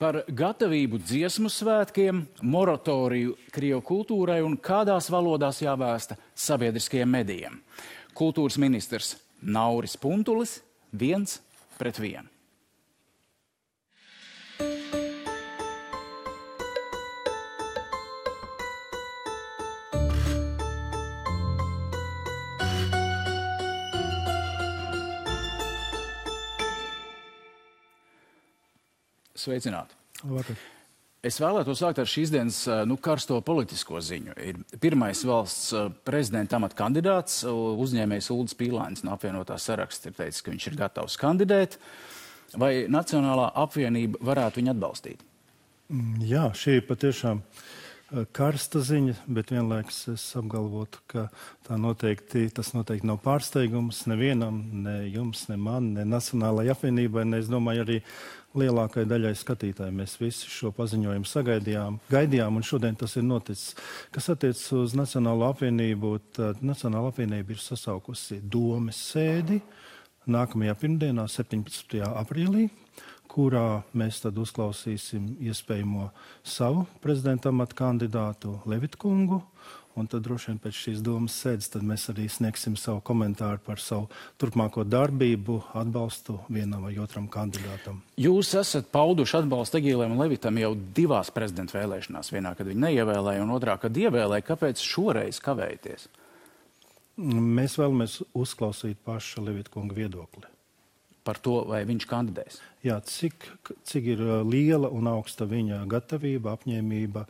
Par gatavību dziesmu svētkiem, moratoriju Krievu kultūrai un kādās valodās jāvēsta sabiedriskajiem medijiem. Kultūras ministrs Nauris Puntulis 1-1. Sveicināti. Labvakar. Es vēlētos sākt ar šīs dienas karsto politisko ziņu. Ir pirmais valsts prezidenta amata kandidāts, uzņēmējs Uldis Pīlānis no apvienotā saraksta ir teicis, ka viņš ir gatavs kandidēt. Vai Nacionālā apvienība varētu viņu atbalstīt? Jā, šī ir patiešām karsta ziņa, bet vienlaikus es apgalvotu, ka tas noteikti nav pārsteigums nevienam, ne jums, ne man, ne Nacionālajai apvienībai, ne es domāju arī lielākai daļai skatītāji. Mēs visi šo paziņojumu gaidījām, un šodien tas ir noticis. Kas attiecas uz Nacionālo apvienību, tad Nacionāla apvienība ir sasaukusi domes sēdi nākamajā pirmdienā, 17. aprīlī, kurā mēs tad uzklausīsim iespējamo savu prezidenta amata kandidātu Levitu kungu, un tad droši vien pēc šīs domas sēdes tad mēs arī sniegsim savu komentāru par savu turpmāko darbību, atbalstu vienam vai otram kandidātam. Jūs esat pauduši atbalstu Egīlēm un Levitam jau divās prezidenta vēlēšanās. Vienā, kad viņi neievēlēja, un otrā, kad ievēlēja. Kāpēc šoreiz kavējaties? Mēs vēlamies uzklausīt paša Levita kunga viedokli. Par to, vai viņš kandidēs? Jā, cik ir liela un augsta viņa gatavība, apņēmība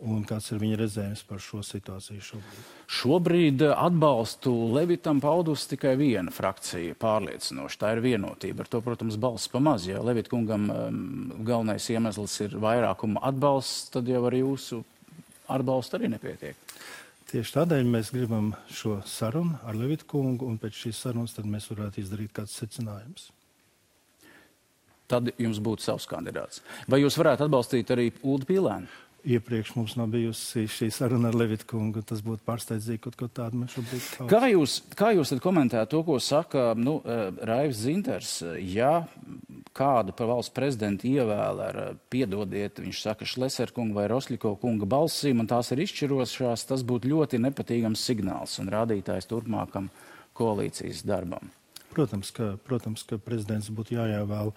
un kāds ir viņa redzējums par šo situāciju šobrīd? Šobrīd atbalstu Levitam paudus tikai viena frakcija pārliecinoši. Tā ir Vienotība. Ar to, protams, balss pamaz. Ja Levita kungam galvenais iemesls ir vairākuma atbalsts, tad jau ar jūsu atbalstu arī nepietiek. Tieši tādēļ mēs gribam šo sarunu ar Levitu kungu, un pēc šīs sarunas tad mēs varētu izdarīt kāds secinājums. Tad jums būtu savs kandidāts. Vai jūs varētu atbalstīt arī Uldi Pīlēnu? Iepriekš mums nav bijusi šī saruna ar Levitu kungu, tas būtu pārsteidzīgi kaut ko tādu mēs šobrīd kaut. Kā jūs tad komentējat to, ko saka Raivs Zinters? Ja kādu par valsts prezidentu ievēl ar, piedodiet, viņš saka, Šleser kunga vai Rosļiko kunga balsīm, un tās ir izšķirošās, tas būtu ļoti nepatīgams signāls un rādītājs turpmākam koalīcijas darbam. Protams, ka prezidents būtu jāievēl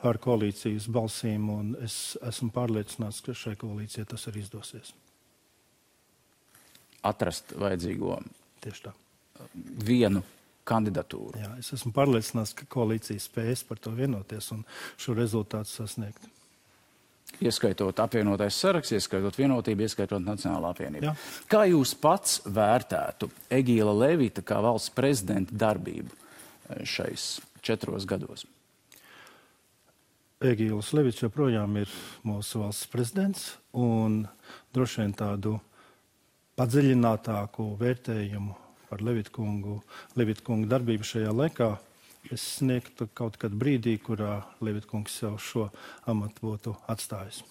ar koalīcijas balsīm, un es esmu pārliecināts, ka šai koalīcijai tas arī izdosies. Atrast vajadzīgo Tieši tā. Vienu kandidatūru. Jā, es esmu pārliecināts, ka koalīcija spēs par to vienoties un šo rezultātu sasniegt. Ieskaitot apvienotais saraksts, ieskaitot Vienotību, ieskaitot Nacionālā apvienību. Jā. Kā jūs pats vērtētu Egīla Levita kā valsts prezidenta darbību šais 4 gados? Egīls Levits joprojām ir mūsu valsts prezidents, un droši vien tādu padziļinātāku vērtējumu par Levitu kungu darbību šajā laikā es sniegtu kaut kad brīdī, kurā Levita kungs jau šo amatu būtu atstājis.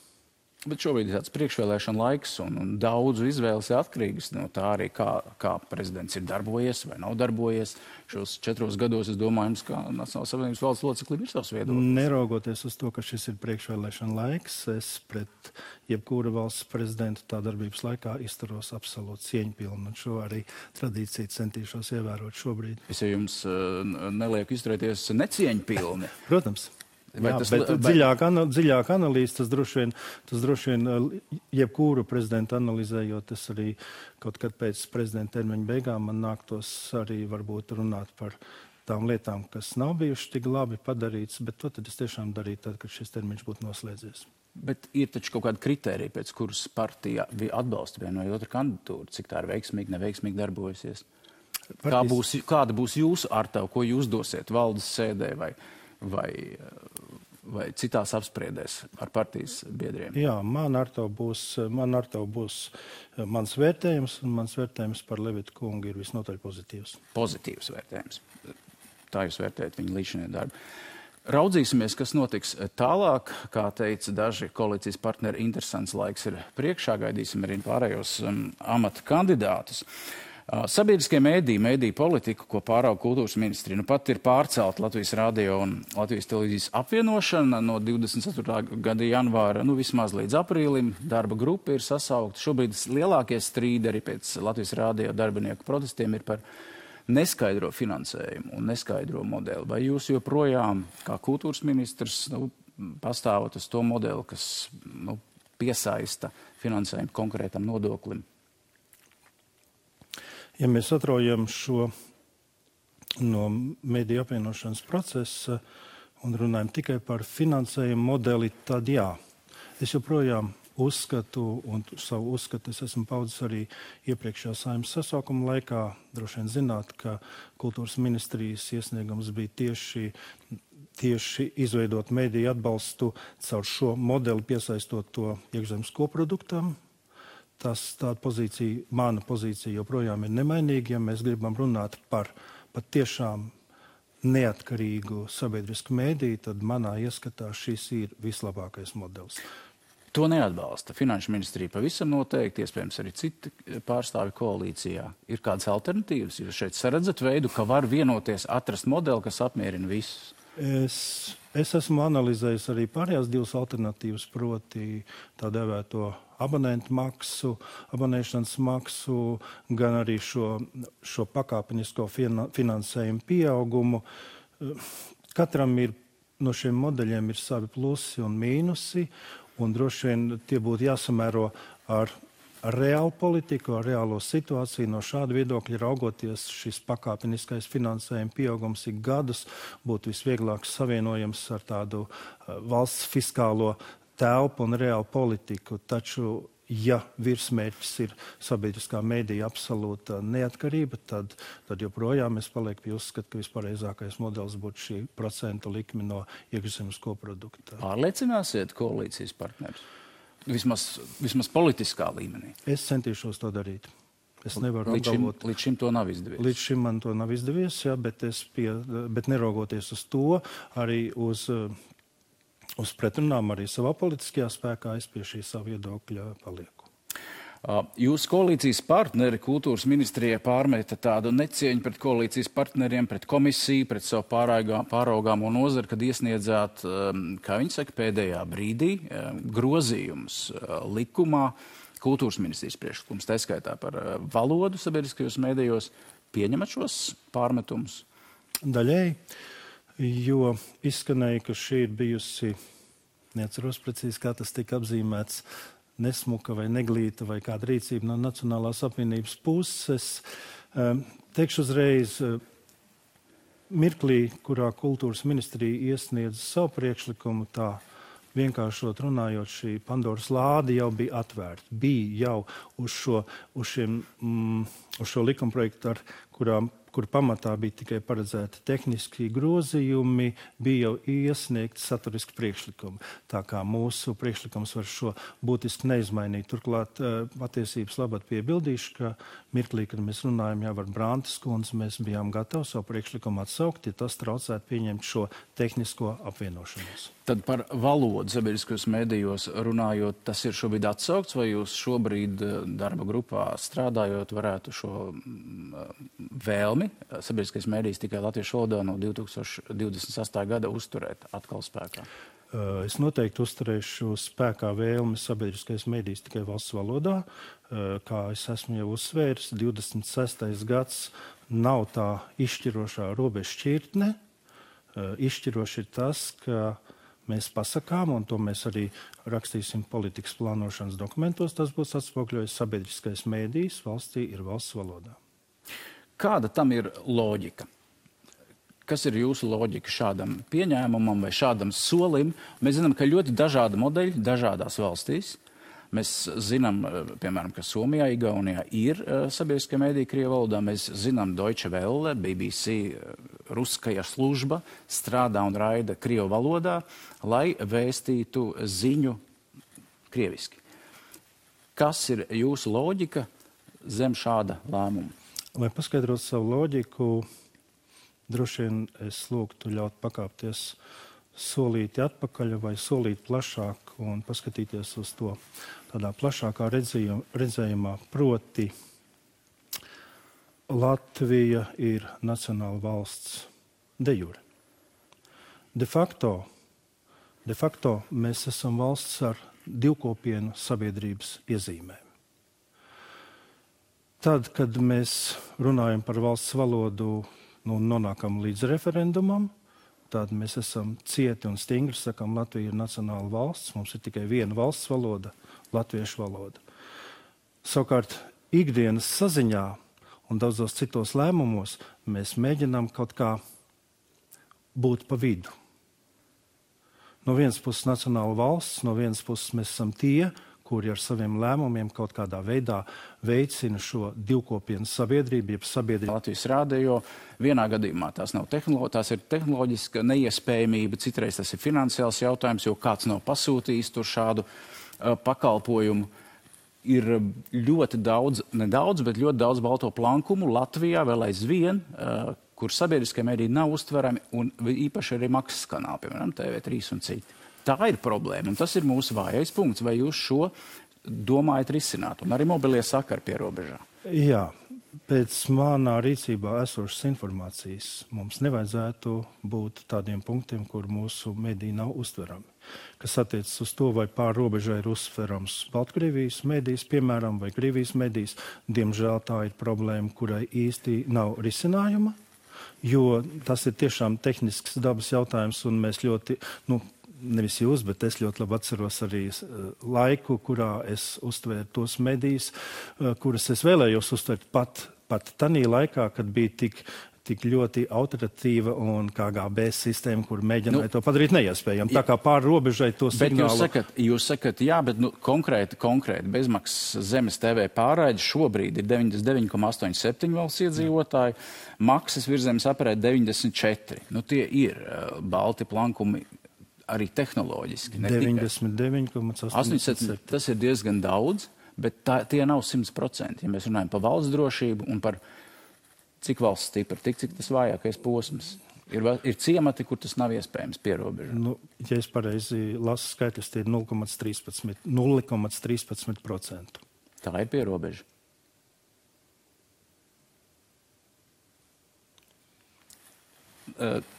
Bet šobrīd ir tāds priekšvēlēšana laiks, un daudzu izvēles ir atkarīgas no tā arī, kā prezidents ir darbojies vai nav darbojies. Šos 4 gados, es domāju, jums kā Nacionālās apvienības valsts loceklim ir savs viedoklis. Neraugoties uz to, ka šis ir priekšvēlēšana laiks, es pret jebkura valsts prezidentu tā darbības laikā izturos absolūti cieņpilni, un šo arī tradīciju centīšos ievērot šobrīd. Es jau jums nelieku izturēties necieņpilni. Protams. Jā, bet dziļāk analīze, tas droši vien jebkuru prezidentu analizējot, es arī kaut kad pēc prezidenta termiņa beigām man nāktos arī varbūt runāt par tām lietām, kas nav bijuši tik labi padarīts, bet to tad es tiešām darītu tad, kad šis termiņš būtu noslēdzies. Bet ir taču kaut kāda kritērija, pēc kuras partija atbalsta vienu vai otru kandidatūru, cik tā ir veiksmīgi, neveiksmīgi darbojasies? Kāda būs jūsu artava, ko jūs dosiet valdes sēdē vai citās apspriedēs ar partijas biedriem? Jā, man ar to būs mans vērtējums, un mans vērtējums par Levitu kungu ir visnotaļ pozitīvs. Pozitīvs vērtējums. Tā jūs vērtējat viņu līdzinējo darbu. Raudzīsimies, kas notiks tālāk. Kā teica daži koalīcijas partneri, interesants laiks ir priekšā. Gaidīsim arī pārējos amata kandidātus. Sabiedriskie mēdīju politika, ko pārauga kultūras ministrija, nu pat ir pārcelta Latvijas radio un Latvijas televīzijas apvienošana no 24. gada janvāra, vismaz līdz aprīlim. Darba grupa ir sasaukta. Šobrīd lielākie strīdi arī pēc Latvijas radio darbinieku protestiem ir par neskaidro finansējumu un neskaidro modeli. Vai jūs joprojām, kā kultūras ministrs, pastāvat uz to modeli, kas piesaista finansējumu konkrētam nodoklim? Ja mēs atraujam šo no mediju apvienošanas procesa un runājam tikai par finansējumu modeli, tad jā. Es joprojām uzskatu, un savu uzskatu es esmu paudzis arī iepriekšējā Saeimas sasaukuma laikā. Droši vien zināt, ka kultūras ministrijas iesniegums bija tieši izveidot mediju atbalstu caur šo modeli, piesaistot to iekšzemes koproduktam. Tāda pozīcija, mana pozīcija joprojām ir nemainīga, ja mēs gribam runāt par tiešām neatkarīgu sabiedrisku mēdīju, tad manā ieskatā šis ir vislabākais modelis. To neatbalsta Finanšu ministrija pavisam noteikti, iespējams arī citi pārstāvi koalīcijā. Ir kādas alternatīvas? Jūs šeit saredzat veidu, ka var vienoties, atrast modeli, kas apmierina visus? Es esmu analizējis arī pārējās divas alternatīvas, proti tā dēvēto abonēšanas maksu, gan arī šo pakāpenisko finansējumu pieaugumu. Katram no šiem modeļiem ir savi plusi un mīnusi, un droši vien tie būtu jāsamēro ar reālu politiku, ar reālo situāciju. No šāda viedokļa raugoties, šis pakāpeniskais finansējuma pieaugums ik gadus būtu visvieglāk savienojams ar tādu valsts fiskālo telpu un reālu politiku. Taču, ja virsmērķis ir sabiedriskā mēdīja absolūta neatkarība, tad joprojām es palieku pie uzskata, ka vispareizākais modelis būtu šī procentu likme no iekšzemes koprodukta. Pārliecināsiet koalīcijas partnerus? Vismaz politiskā līmenī. Es centīšos to darīt. Es nevaru apgalvot. Līdz šim to nav izdevies. Līdz šim man to nav izdevies, jā, bet neraugoties uz to, arī uz pretrunām arī savā politiskajā spēkā, es pie šī savu viedokļa palieku. Jūsu koalīcijas partneri kultūras ministrijai pārmeta tādu necieņu pret koalīcijas partneriem, pret komisiju, pret savu pāraugāmo nozari, kad iesniedzāt, kā viņi saka, pēdējā brīdī grozījumus likumā, kultūras ministrijas priekšlikums, tā skaitā par valodu sabiedriskajos mēdījos. Pieņemat šos pārmetumus? Daļēji, jo izskanēja, ka šī ir bijusi, neatceros precīzi, kā tas tika apzīmēts, nesmuka vai neglīta vai kāda rīcība no Nacionālās apvienības puses. Teikšu uzreiz, mirklī, kurā kultūras ministrija iesniedza savu priekšlikumu, tā vienkāršot runājot, šī Pandoras lāde jau bija atvērta. Bija jau uz šo likumprojektu, kur pamatā bija tikai paredzēti tehniski grozījumi, bija jau iesniegti saturiski priekšlikumi. Tā kā mūsu priekšlikums var šo būtiski neizmainīt. Turklāt patiesības labad piebildīšu, ka mirklī, kad mēs runājam jau ar Brantas kundzi, mēs bijām gatavi savu priekšlikumu atsaukt, ja tas traucētu pieņemt šo tehnisko apvienošanos. Tad par valodu sabiedriskajos mēdījos runājot, tas ir šobrīd atsaukts, vai jūs šobrīd darba grupā strādājot varētu šo vēlmi sabiedriskais mēdījis tikai latviešu valodā no 2028. gada uzturēt atkal spēkā? Es noteikti uzturēšu spēkā vēlmi sabiedriskais mēdījis tikai valsts valodā. Kā es esmu jau uzsvēris, 26. gads nav tā izšķirošā robežšķirtne. Izšķiroši ir tas, ka mēs pasakām, un to mēs arī rakstīsim politikas plānošanas dokumentos, tas būs atspogļojis sabiedriskais mēdījis valstī ir valsts valodā. Kāda tam ir loģika? Kas ir jūsu loģika šādam pieņēmumam vai šādam solim? Mēs zinām, ka ļoti dažādi modeļi dažādās valstīs. Mēs zinām, piemēram, ka Somijā, Igaunijā ir sabiedriskie mēdīji Krievu valodā. Mēs zinām Deutsche Welle, BBC, Ruskaja služba strādā un raida Krievu valodā, lai vēstītu ziņu krieviski. Kas ir jūsu loģika zem šāda lēmuma? Lai paskaidrotu savu loģiku, droši vien es lūgtu ļaut pakāpties solīti atpakaļ vai solīt plašāk un paskatīties uz to tādā plašākā redzējumā, proti Latvija ir nacionāla valsts de jure. De facto mēs esam valsts ar divkopienu sabiedrības iezīmēm. Tad, kad mēs runājam par valsts valodu, nonākam līdz referendumam, tad mēs esam cieti un stingri, sakam, Latvija ir nacionāla valsts, mums ir tikai viena valsts valoda, latviešu valoda. Savukārt, ikdienas saziņā un daudzos citos lēmumos mēs mēģinām kaut kā būt pa vidu. No vienas puses nacionāla valsts, no vienas puses mēs esam tie, kuri ar saviem lēmumiem kaut kādā veidā veicina šo divkopienu sabiedrību, jeb sabiedrību. Latvijas rādio vienā gadījumā tās ir tehnoloģiska neiespējamība, citreiz tas ir finansiāls jautājums, jo kāds nav pasūtījis tur šādu pakalpojumu. Ir ļoti daudz, nedaudz, bet ļoti daudz balto plankumu Latvijā vēl aizvien, kur sabiedriskie mediji nav uztverami un īpaši arī maksas kanāli, piemēram, TV3 un citi. Tā ir problēma, un tas ir mūsu vājais punkts. Vai jūs šo domājat risināt? Un arī mobilie sakari pie robežā. Jā, pēc manā rīcībā esošas informācijas mums nevajadzētu būt tādiem punktiem, kur mūsu mediji nav uztverami. Kas attiecas uz to, vai pār robežai ir uztverams Baltkrievijas medijs, piemēram, vai Krievijas medijs, diemžēl tā ir problēma, kurai īsti nav risinājuma, jo tas ir tiešām tehnisks dabas jautājums, un mēs ļoti, nevis jūs, bet es ļoti labi atceros arī laiku, kurā es uztvēru tos medijus, kuras es vēlējos uztvert pat tanī laikā, kad bija tik ļoti autoritatīva un KGB sistēma, kur mēģināja to padarīt neiespējami. Tā kā pār robežai to signālu... Bet jūs sakat, jā, bet konkrēti bezmaksas zemes TV pārraide šobrīd ir 99,87 valsts iedzīvotāji, maksas virzemes aprēķi 94. Tie ir balti plankumi arī tehnoloģiski. 99,87. Tas ir diezgan daudz, bet tie nav 100%. Ja mēs runājam par valsts drošību un par cik valsts stipra, cik tas vājākais posms. Ir ciemati, kur tas nav iespējams pierobežā. Ja es pareizi lasu skaitļus, tie ir 0,13%. Tā ir pierobeža.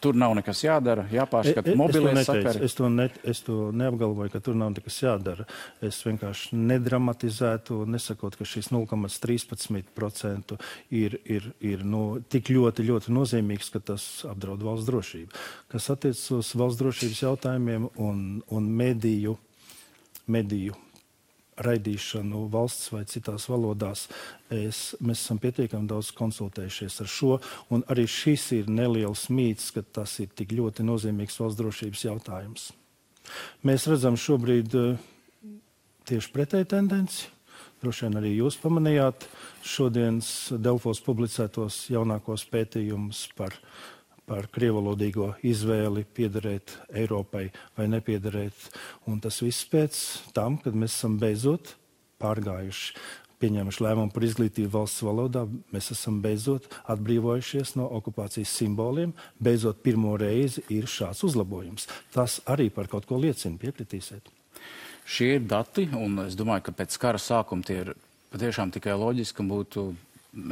Tur nav nekas jādara, jāpārskata mobilie sakari. Es to neapgalvoju, ka tur nav nekas jādara. Es vienkārši nedramatizētu, nesakot, ka šis 0,13% ir tik ļoti, ļoti nozīmīgs, ka tas apdraud valsts drošību. Kas attiecas uz valsts drošības jautājumiem un mediju raidīšanu valsts vai citās valodās, mēs esam pietiekami daudz konsultējušies ar šo, un arī šis ir neliels mīts, ka tas ir tik ļoti nozīmīgs valsts drošības jautājums. Mēs redzam šobrīd tieši pretēju tendenci. Droši vien arī jūs pamanījāt šodienas Delfos publicētos jaunākos pētījumus par krievalodīgo izvēli piederēt Eiropai vai nepiederēt. Un tas viss pēc tam, kad mēs esam beidzot pārgājuši, pieņēmuši lēmumu par izglītību valsts valodā, mēs esam beidzot atbrīvojušies no okupācijas simboliem, beidzot pirmo reizi ir šāds uzlabojums. Tas arī par kaut ko liecina, piekritīsiet. Šie ir dati, un es domāju, ka pēc kara sākuma tie ir patiešām tikai loģiski, un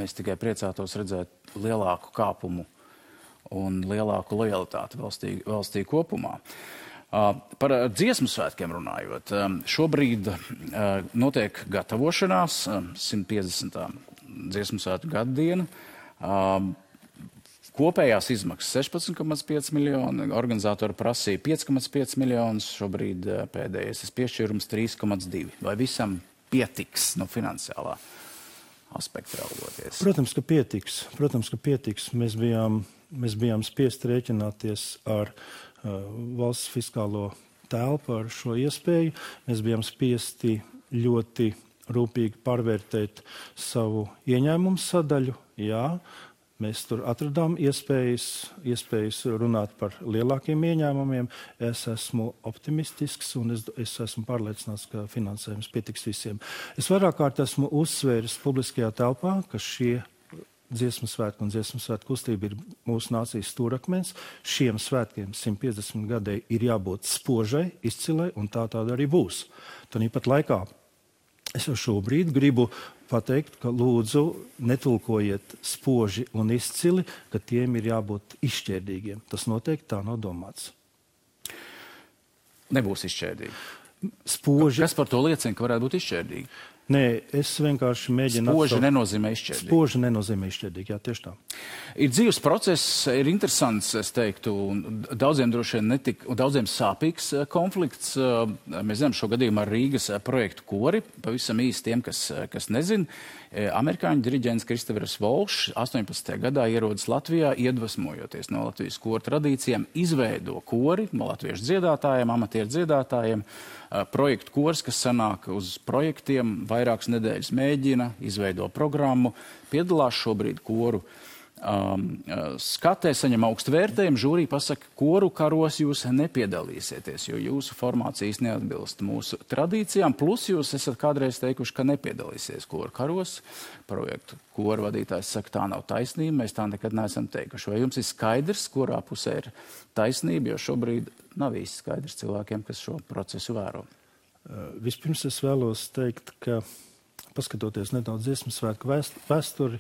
mēs tikai priecātos redzēt lielāku kāpumu un lielāku lojalitāti valstī kopumā. Par dziesmu svētkiem runājot, šobrīd notiek gatavošanās 150. dziesmu svētku gaddiena. Kopējās izmaksas 16,5 miljoni, organizatori prasīja 5,5 miljonus, šobrīd pēdējais piešķīrums 3,2. Vai visam pietiks no finansiālā aspekta raugoties? Protams, ka pietiks. Mēs bijām spiest rēķināties ar valsts fiskālo telpu, ar šo iespēju. Mēs bijām spiesti ļoti rūpīgi pārvērtēt savu ieņēmumu sadaļu. Jā, mēs tur atradām iespējas runāt par lielākiem ieņēmumiem. Es esmu optimistisks un es esmu pārliecināts, ka finansējums pietiks visiem. Es vairāk kārt esmu uzsvēris publiskajā telpā, ka šie dziesmu svētku un dziesmu svētku kustība ir mūsu nācijas stūrakmens. Šiem svētkiem 150 gadēji ir jābūt spožai, izcilai, un tāda arī būs. Tāpat laikā Es jau šobrīd gribu pateikt, ka lūdzu netulkojiet spoži un izcili, ka tiem ir jābūt izšķērdīgiem. Tas noteikti tā nav domāts. Nebūs izšķērdīgi. Spoži... Kas par to liecina, ka varētu būt izšķērdīgi? Nē, es vienkārši mēģinu... Spoži nenozīmē izšķērdīgi. Spoži nenozīmē izšķērdīgi, jā, tieši tā. Ir dzīves process, ir interesants, es teiktu, un daudziem droši vien un daudziem sāpīgs konflikts. Mēs zinām šo gadījumu ar Rīgas projektu Kori, pavisam īsti tiem, kas nezin. Amerikāņu diriģents Kristofers Volšs 18. gadā ierodas Latvijā, iedvesmojoties no Latvijas koru tradīcijām, izveido kori no latviešu dziedātājiem, amatieru dziedātājiem, projektu kors, kas sanāk uz projektiem, vairākas nedēļas mēģina, izveido programmu, piedalās šobrīd koru skatē, saņem augstu vērtējumu, žūrī pasaka, koru karos jūs nepiedalīsieties, jo jūsu formācijas neatbilst mūsu tradīcijām, plus jūs esat kādreiz teikuši, ka nepiedalīsies koru karos. Projektu koru vadītājs saka, tā nav taisnība, mēs tā nekad neesam teikuši. Vai jums ir skaidrs, kurā pusē ir taisnība, jo šobrīd nav īsti skaidrs cilvēkiem, kas šo procesu vēro? Vispirms es vēlos teikt, ka paskatoties nedaudz Dziesmu svētku vēsturi,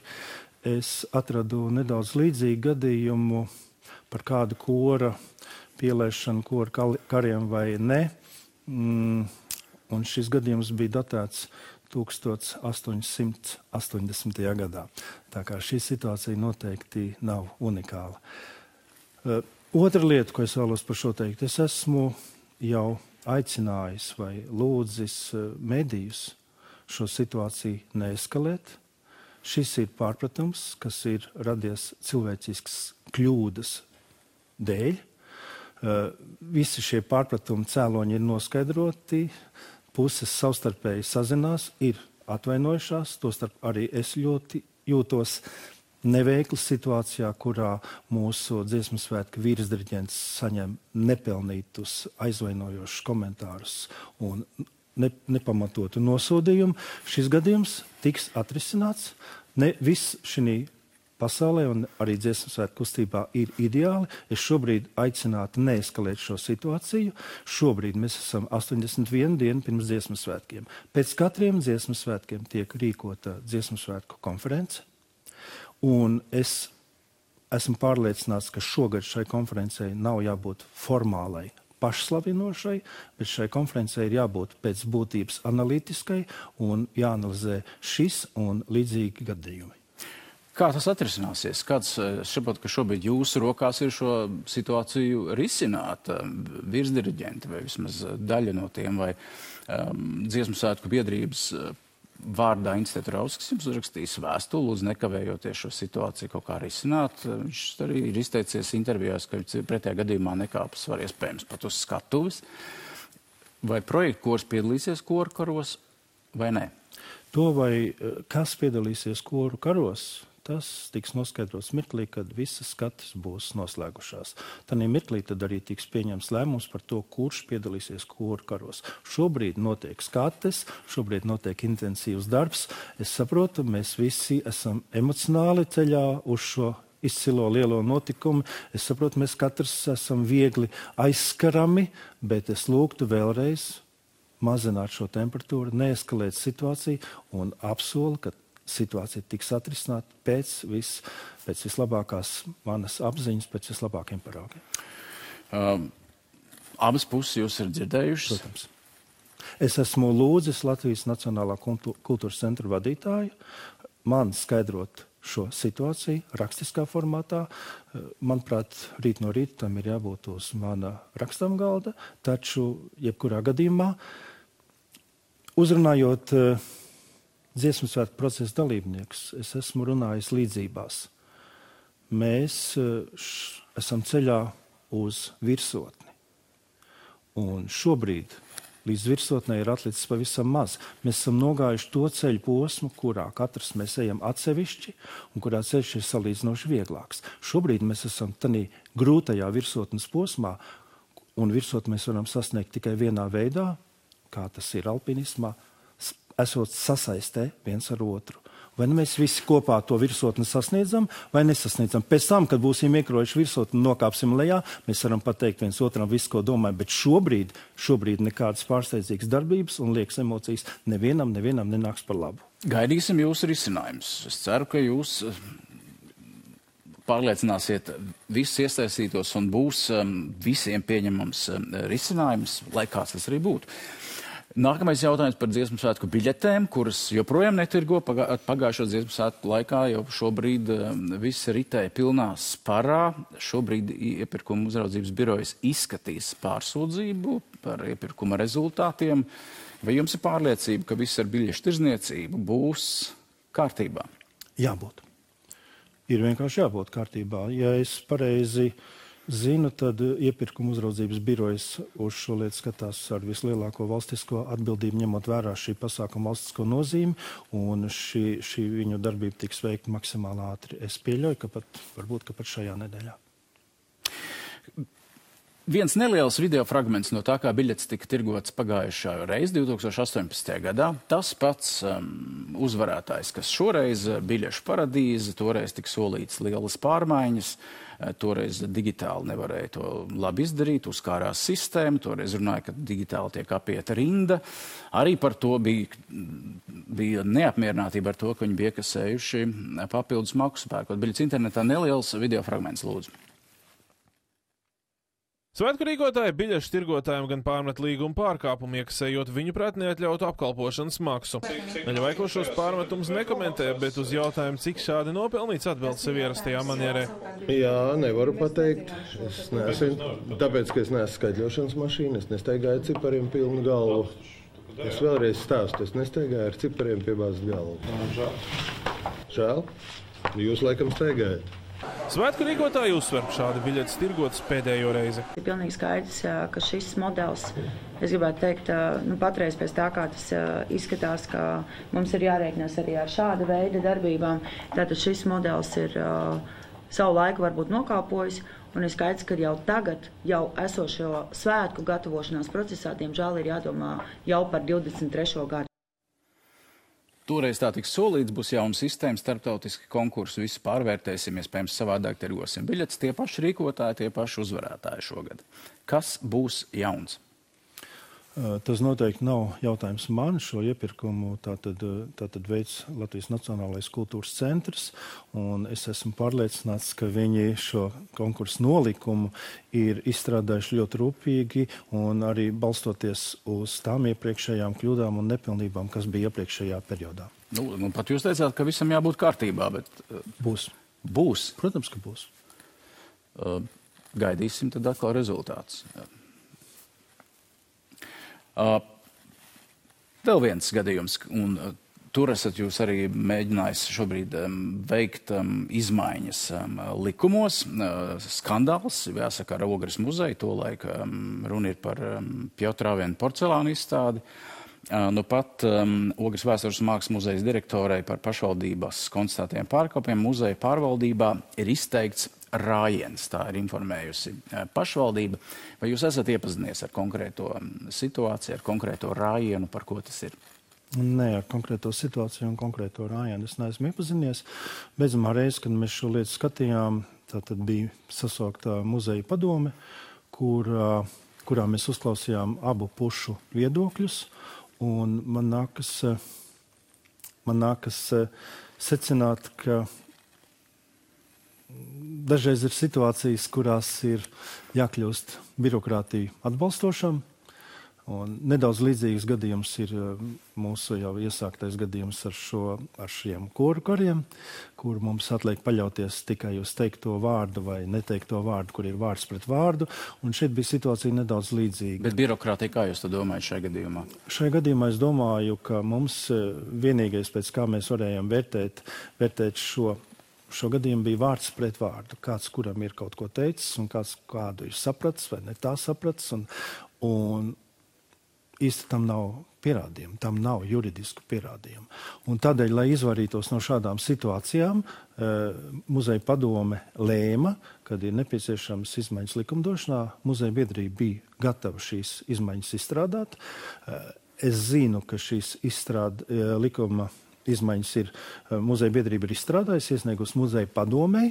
es atradu nedaudz līdzīgu gadījumu par kādu kora pielaišanu koru kariem vai ne. Un šis gadījums bija datēts 1880. gadā. Tā kā šī situācija noteikti nav unikāla. Otra lieta, ko es vēlos par šo teikt, es esmu jau aicinājis vai lūdzis medijus šo situāciju neeskalēt. Šis ir pārpratums, kas ir radies cilvēcisks kļūdas dēļ. Visi šie pārpratumi cēloņi ir noskaidroti, puses savstarpēji sazinās, ir atvainojušās, tostarp arī es ļoti jūtos neveikli situācijā, kurā mūsu Dziesmu svētku vīrasdiriģents saņem nepelnītus aizvainojošus komentārus un nepamatotu nosodījumu. Šis gadījums tiks atrisināts. Ne viss šī pasaulē un arī Dziesmu svētku kustībā ir ideāli. Es šobrīd aicinātu neeskalēt šo situāciju. Šobrīd mēs esam 81 dienu pirms Dziesmu svētkiem. Pēc katriem Dziesmu svētkiem tiek rīkota Dziesmu svētku konference. Un es esmu pārliecināts, ka šogad šai konferencei nav jābūt formālai, pašslavinošai, bet šai konferencei ir jābūt pēc būtības analītiskai un jāanalizē šis un līdzīgi gadījumi. Kā tas atrisināsies? Kāds saprot, ka šobrīd jūsu rokās ir šo situāciju risināt virsdiriģenti vai vismaz daļa no tiem vai Dziesmu svētku biedrības vārdā Institūta Rauskis jums uzrakstījis vēstuli, lūdzu nekavējoties šo situāciju kaut kā risināt. Viņš arī ir izteicies intervijās, ka pretējā gadījumā nekāpes var iespējams pat uz skatuves. Vai projektu kors piedalīsies koru karos vai nē? To vai kas piedalīsies koru karos, tas tiks noskaidrots mirklī, kad visas skates būs noslēgušās. Tanī mirklī tad arī tiks pieņems lēmums par to, kurš piedalīsies koru karos. Šobrīd notiek skates, šobrīd notiek intensīvs darbs. Es saprotu, mēs visi esam emocionāli ceļā uz šo izcilo lielo notikumu. Es saprotu, mēs katrs esam viegli aizskarami, bet es lūgtu vēlreiz mazināt šo temperatūru, neeskalēt situāciju un apsolu, ka situācija tiks atrisināta pēc vislabākās manas apziņas, pēc vislabākiem paraugiem. Abas puses jūs ir dzirdējušas? Protams. Es esmu lūdzis Latvijas Nacionālā kultūras centra vadītāju man skaidrot šo situāciju rakstiskā formātā. Manuprāt, rīt no rīta tam ir jābūt uz mana rakstām galda, taču jebkurā gadījumā uzrunājot Dziesmu svētku procesa dalībniekus, es esmu runājis līdzībās. Mēs esam ceļā uz virsotni. Un šobrīd līdz virsotnē ir atlicis pavisam maz. Mēs esam nogājuši to ceļu posmu, kurā katrs mēs ejam atsevišķi un kurā ceļš ir salīdzinoši vieglāks. Šobrīd mēs esam tādā grūtajā virsotnes posmā, un virsotni mēs varam sasniegt tikai vienā veidā, kā tas ir alpinismā, esot sasaistē viens ar otru. vai mēs visi kopā to virsotni sasniedzam vai nesasniedzam. Pēc tam, kad būsim iekrojuši virsotni un nokāpsim lejā, mēs varam pateikt viens otram visu, ko domājam, bet šobrīd nekādas pārsteidzīgas darbības un liekas emocijas nevienam nenāks par labu. Gaidīsim jūsu risinājumus. Es ceru, ka jūs pārliecināsiet visus iesaistītos un būs visiem pieņemams risinājums, lai kāds tas arī būtu. Nākamais jautājums par dziesmu svētku biļetēm, kuras joprojām netirgo. Pagājušo dziesmu svētku laikā jau šobrīd viss ritēja pilnā sparā. Šobrīd iepirkuma uzraudzības birojas izskatīs pārsūdzību par iepirkuma rezultātiem. Vai jums ir pārliecība, ka viss ar biļešu tirzniecību būs kārtībā? Jābūt. Ir vienkārši jābūt kārtībā. Ja es pareizi zinu, tad iepirkuma uzraudzības birojas uz šo lietu skatās ar vislielāko valstisko atbildību, ņemot vērā šī pasākuma valstisko nozīmi, un šī viņu darbība tiks veikta maksimāli ātri. Es pieļauju, ka varbūt pat šajā nedēļā. Viens neliels video fragments no tā, kā biļetes tika tirgots pagājušā reiz, 2018. gadā. Tas pats uzvarētājs, kas šoreiz biļešu paradīze, toreiz tika solīts lielas pārmaiņas, toreiz digitāli nevarēja to labi izdarīt, uzkārās sistēma, toreiz runāja, ka digitāli tiek apieta rinda. Arī par to bija neapmierinātība ar to, ka viņi bija iekasējuši papildus maksu pērkot biļetes internetā. Neliels video fragments, lūdzu. Svētku rīkotāji biļešu tirgotājiem gan pārmet līguma pārkāpumu, iekasējot viņu prāt neatļautu apkalpošanas maksu. Daļa veiklo šos pārmetumus nekomentē, bet uz jautājumu, cik šādi nopelnīts, atbild sev ierastajā manierē. Jā, nevaru pateikt. Es neesmu, tāpēc, ka es neesmu skaitļošanas mašīna, es nestaigāju cipariem pilnu galvu. Es vēlreiz stāstu, es nestaigāju ar cipariem piebāzt galvu. Žēl? Jūs laikam staigājat. Svētku rīkotāji uzsver, šādi biļetes tirgotas pēdējo reizi. Ir pilnīgi skaidrs, ka šis modelis, es gribētu teikt, patreiz pēc tā, kā tas izskatās, ka mums ir jārēķinās arī ar šāda veida darbībām. Tātad šis modelis ir savu laiku varbūt nokāpojis, un ir skaidrs, ka jau tagad, jau esošo svētku gatavošanās procesā, diemžēl ir jādomā jau par 23. gadu. Toreiz tā tiks solīts, būs jauna sistēma, starptautiski konkursi, visu pārvērtēsim, iespējams savādāk tirgosim biļetes, tie paši rīkotāji, tie paši uzvarētāji šogad. Kas būs jauns? Tas noteikti nav jautājums man. Šo iepirkumu tātad veids Latvijas Nacionālais kultūras centrs, un es esmu pārliecināts, ka viņi šo konkursu nolikumu ir izstrādājuši ļoti rūpīgi un arī balstoties uz tām iepriekšējām kļūdām un nepilnībām, kas bija iepriekšējā periodā. Nu, pat jūs teicāt, ka visam jābūt kārtībā, bet... Būs. Būs? Protams, ka būs. Gaidīsim tad atkal rezultātus. Vēl viens gadījums, un tur esat jūs arī mēģinājis šobrīd veikt izmaiņas likumos. Skandāls, jāsaka, ar Ogres muzeju, tolaik runa ir par Pjotrāvienu porcelānu izstādi. Nu pat Ogres vēstures mākslas muzejas direktorai par pašvaldības konstatētiem pārkāpumiem muzeja pārvaldībā ir izteikts rājiens, tā ir informējusi pašvaldība. Vai jūs esat iepazinies ar konkrēto situāciju, ar konkrēto rājienu, par ko tas ir? Nē, ar konkrēto situāciju un konkrēto rājienu es neesmu iepazinies. Beidzamā reize, kad mēs šo lietu skatījām, tātad bija sasaukta muzeja padome, kurā mēs uzklausījām abu pušu viedokļus, un man nākas secināt, ka dažreiz ir situācijas, kurās ir jākļūst birokrātiju atbalstošam. Un nedaudz līdzīgs gadījums ir mūsu jau iesāktais gadījums ar šiem koru kariem, kur mums atliek paļauties tikai uz teikto vārdu vai neteikto vārdu, kur ir vārds pret vārdu. Un šeit bija situācija nedaudz līdzīga. Bet birokrātija, kā jūs to domājat šajā gadījumā? Šajā gadījumā es domāju, ka mums vienīgais, pēc kā mēs varējām vērtēt šo gadījumu, bija vārds pret vārdu. Kāds, kuram ir kaut ko teicis, un kāds kādu ir sapratis vai ne tā sapratis. Un īsti tam nav pierādījumu, tam nav juridisku pierādījumu. Un tādēļ, lai izvairītos no šādām situācijām, muzeja padome lēma, kad ir nepieciešams izmaiņas likumdošanā, muzeja biedrība bija gatava šīs izmaiņas izstrādāt. Es zinu, ka šīs likuma izmaiņas ir muzeja biedrība ir izstrādājusi, iesniegusi muzeja padomei,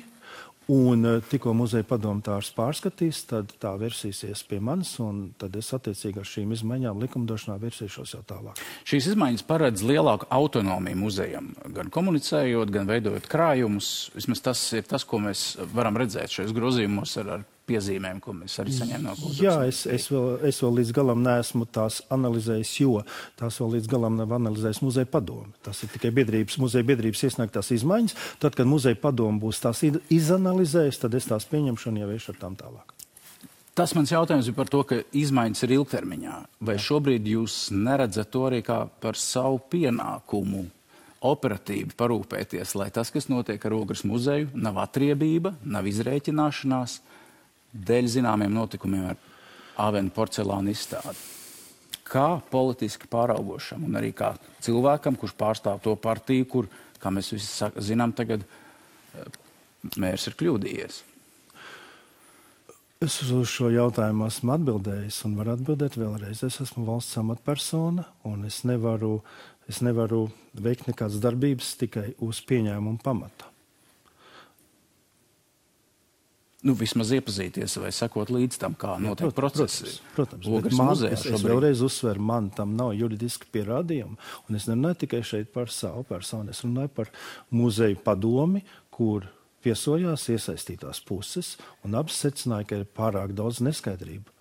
un tikko muzeja padomtārs pārskatīs, tad tā versīsies pie manis, un tad es attiecīgi ar šīm izmaiņām likumdošanā versīšos jau tālāk. Šīs izmaiņas paredz lielāku autonomiju muzejam, gan komunicējot, gan veidojot krājumus. Vismaz tas ir tas, ko mēs varam redzēt šajos grozījumos ar piezīmēm, ko mēs arī saņēmām no kultūras. Jā, es vēl līdz galam neesmu tās analizējis, jo tās vēl līdz galam nav analizējis muzeja padome. Tas ir tikai muzeja biedrības iesniegtās izmaiņas. Tad, kad muzeja padome būs tās izanalizējis, tad es tās pieņemšu un jau iešu ar tām tālāk. Tas mans jautājums ir par to, ka izmaiņas ir ilgtermiņā. Vai šobrīd jūs neredzat to arī kā par savu pienākumu operatīvi parūpēties, lai tas, kas notiek ar Ogres muzeju, nav atriebība, nav izrēķināšanās dēļ zināmiem notikumiem ar Avenu porcelāna izstādi? Kā politiski pāraugošam un arī kā cilvēkam, kurš pārstāv to partiju, kur, kā mēs visi zinām, tagad mērs ir kļūdījies? Es uz šo jautājumu esmu atbildējis un varu atbildēt vēlreiz. Es esmu valsts amatpersona un es nevaru veikt nekādas darbības tikai uz pieņēmumu pamata. Vismaz iepazīties vai sekot līdz tam, kā notiek procesi. Protams, Ogres bet muzejā es vēlreiz uzsveru, man tam nav juridiski pierādījumi, un es nerunāju tikai šeit par savu personu, es runāju par muzeju padomi, kur viesojās iesaistītās puses, un abas secināja, ka ir pārāk daudz neskaidrību.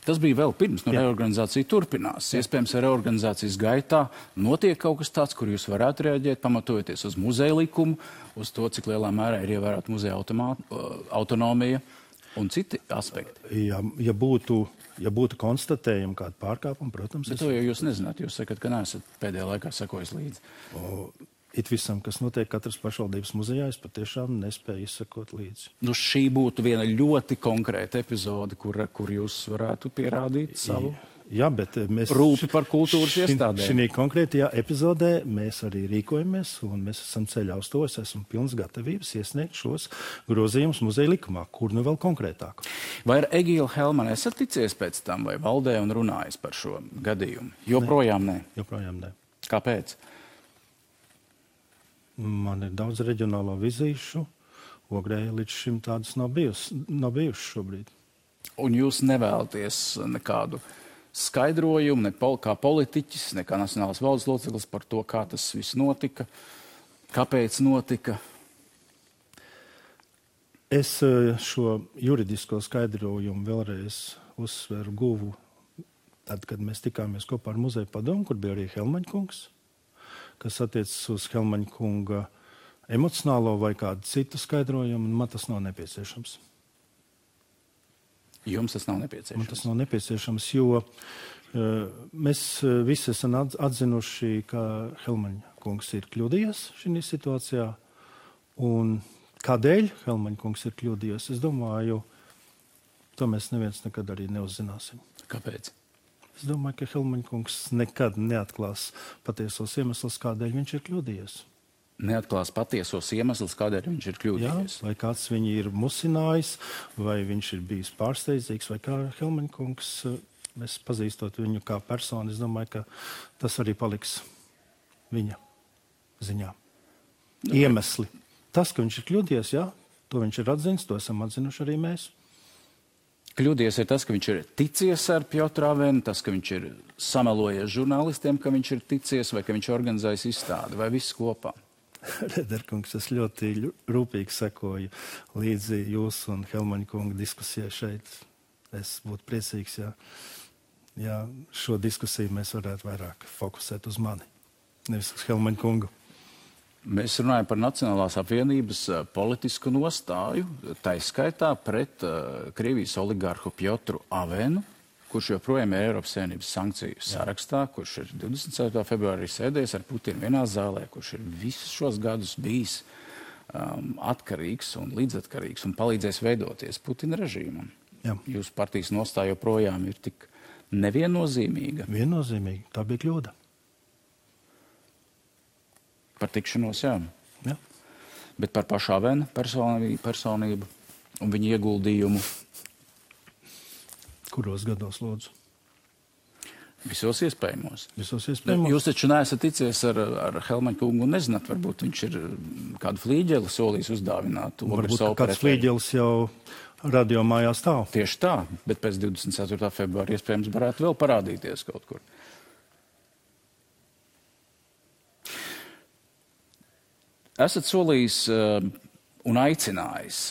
Tas bija vēl pirms, reorganizācija turpinās. Iespējams, reorganizācijas gaitā notiek kaut kas tāds, kur jūs varētu reaģēt, pamatojoties uz muzeja likumu, uz to, cik lielā mērā ir ievērota muzeja autonomija un citi aspekti. Ja būtu konstatējumi kādu pārkāpumu, protams... Bet to jau jūs nezināt, jūs sakat, ka neesat pēdējā laikā sekojis līdzi. It visam, kas notiek katras pašvaldības muzejā, es patiešām nespēju izsekot līdzi. Šī būtu viena ļoti konkrēta epizode, kur jūs varētu pierādīt savu rūpi par kultūras iestādēm. Šī konkrētajā epizodē mēs arī rīkojamies, un mēs esam ceļā uz to. Es esmu pilns gatavības iesniegt šos grozījumus muzeja likumā, kur nu vēl konkrētāk. Vai ar Egilu Helmanu esat ticies pēc tam, vai valdē un runājis par šo gadījumu? Joprojām nē. Joprojām nē. Kāpēc? Man ir daudz reģionālo vizīšu. Ogrē līdz šim tādas nav bijušas šobrīd. Un jūs nevēlaties nekādu skaidrojumu, ne kā politiķis, ne kā nacionālās valdes loceklis par to, kā tas viss notika, kāpēc notika? Es šo juridisko skaidrojumu vēlreiz uzsveru guvu tad, kad mēs tikāmies kopā ar muzeja padomu, kur bija arī Helmaņa kungs, kas attiecas uz Helmaņa kunga emocionālo vai kādu citu skaidrojumu, un man tas nav nepieciešams. Jums tas nav nepieciešams? Man tas nav nepieciešams, jo mēs visi esam atzinuši, ka Helmaņa kungs ir kļūdījies šī situācijā, un kādēļ Helmaņa kungs ir kļūdījies, es domāju, to mēs neviens nekad arī neuzzināsim. Kāpēc? Es domāju, ka Helmaņa kungs nekad neatklās patiesos iemeslus, kādēļ viņš ir kļūdījies. Neatklās patiesos iemeslus, kādēļ viņš ir kļūdījies? Jā, vai kāds viņu ir musinājis, vai viņš ir bijis pārsteidzīgs, vai kā Helmaņa kungs, mēs pazīstot viņu kā personu, es domāju, ka tas arī paliks viņa ziņā. Iemesli. Tas, ka viņš ir kļūdījies, jā, to viņš ir atzinis, to esam atzinuši arī mēs. Kļūdījies ir tas, ka viņš ir ticies ar Piotru Avenu, tas, ka viņš ir samelojies žurnālistiem, ka viņš ir ticies, vai ka viņš organizējis izstādi, vai viss kopā? Rederkungs, es ļoti rūpīgi sekoju līdzi jūsu un Helmaņa kunga diskusijai šeit. Es būtu priecīgs, ja šo diskusiju mēs varētu vairāk fokusēt uz mani, nevis uz Helmaņa kungu. Mēs runājam par Nacionālās apvienības politisku nostāju, taiskaitā pret Krievijas oligarhu Piotru Avenu, kurš joprojām ir Eiropas Savienības sankciju sarakstā, kurš ir 24. februārī sēdējis ar Putinu vienā zālē, kurš ir visus šos gadus bijis atkarīgs un līdzatkarīgs un palīdzējis veidoties Putina režīmam. Jā. Jūsu partijas nostāja joprojām ir tik neviennozīmīga. Viennozīmīgi, tā bija kļūda. Par tikšanos, jā. Jā. Bet par pašu Avenu personību un viņa ieguldījumu. Kuros gados, lūdzu? Visos iespējamos. Jūs taču neesat ticies ar Helmaņa kungu un nezināt, varbūt viņš ir kādu flīģeli solījis uzdāvināt. Varbūt kāds flīģelis jau radio mājā stāv. Tieši tā, bet pēc 24. februāra iespējams varētu vēl parādīties kaut kur. Esat solījis un aicinājis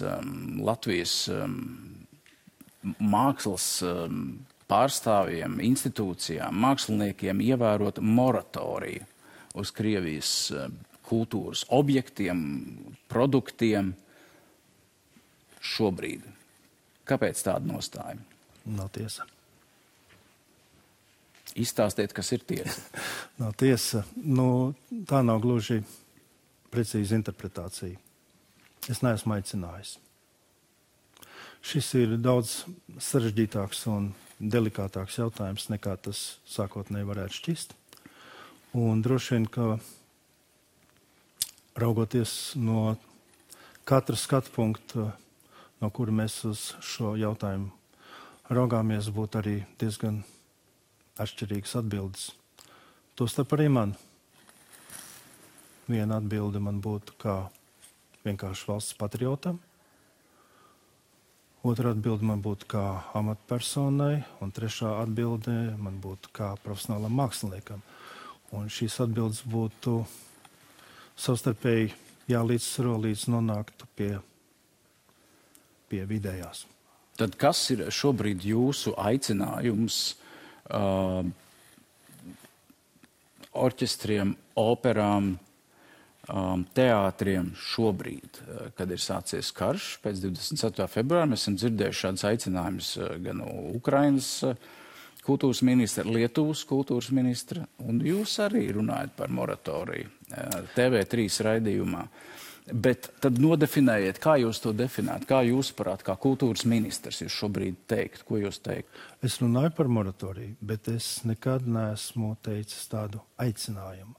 Latvijas mākslas pārstāvjiem, institūcijām, māksliniekiem ievērot moratoriju uz Krievijas kultūras objektiem, produktiem šobrīd. Kāpēc tāda nostāja? Nav tiesa. Izstāstiet, kas ir tiesa. Nav tiesa. Tā nav gluži precīza interpretācija. Es neesmu aicinājis. Šis ir daudz sarežģītāks un delikātāks jautājums, nekā tas sākotnēji varētu šķist. Un droši vien, ka raugoties no katra skatu punkta, no kura mēs uz šo jautājumu raugāmies, būtu arī diezgan atšķirīgas atbildes. Tostarp arī man. Viena atbilde man būtu kā vienkārši valsts patriotam. Otra atbilde man būtu kā amatpersonai, un trešā atbilde man būtu kā profesionālam māksliniekam. Un šīs atbildes būtu savstarpēji jālīdzsvaro, līdz nonāktu pie vidējās. Tad kas ir šobrīd jūsu aicinājums orķestriem, operām, teātriem šobrīd, kad ir sācies karš pēc 24. februāra? Mēs esam dzirdējuši šādus aicinājumus gan no Ukrainas kultūras ministra, Lietuvas kultūras ministra, un jūs arī runājat par moratoriju TV3 raidījumā. Bet tad nodefinējiet, kā jūs to definēt, kā jūs parāt, kā kultūras ministrs jūs šobrīd teikt, ko jūs teikt? Es runāju par moratoriju, bet es nekad neesmu teicis tādu aicinājumu.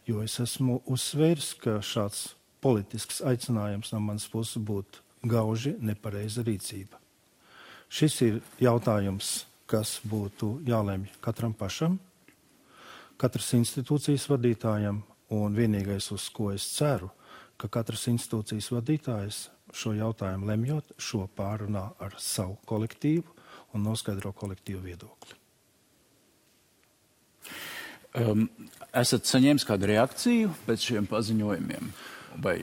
Jo es esmu uzsvērs, ka šāds politisks aicinājums no manas puses būtu gauži nepareiza rīcība. Šis ir jautājums, kas būtu jālemj katram pašam, katras institūcijas vadītājam, un vienīgais, uz ko es ceru, ka katras institūcijas vadītājs šo jautājumu lemjot, šo pārunā ar savu kolektīvu un noskaidro kolektīvu viedokli. Esat saņēmis kādu reakciju pēc šiem paziņojumiem vai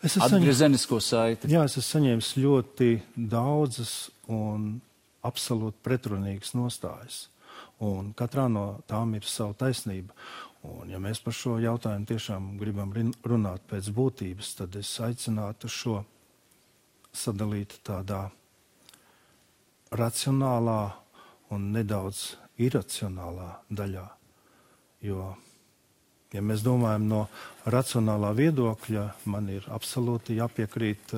atgriezenisko saiti? Jā, es esmu saņēmis ļoti daudzas un absolūti pretrunīgas nostājas. Un katrā no tām ir sava taisnība. Un ja mēs par šo jautājumu tiešām gribam runāt pēc būtības, tad es aicinātu šo sadalīt tādā racionālā un nedaudz iracionālā daļā. Jo, ja mēs domājam no racionālā viedokļa, man ir absolūti jāpiekrīt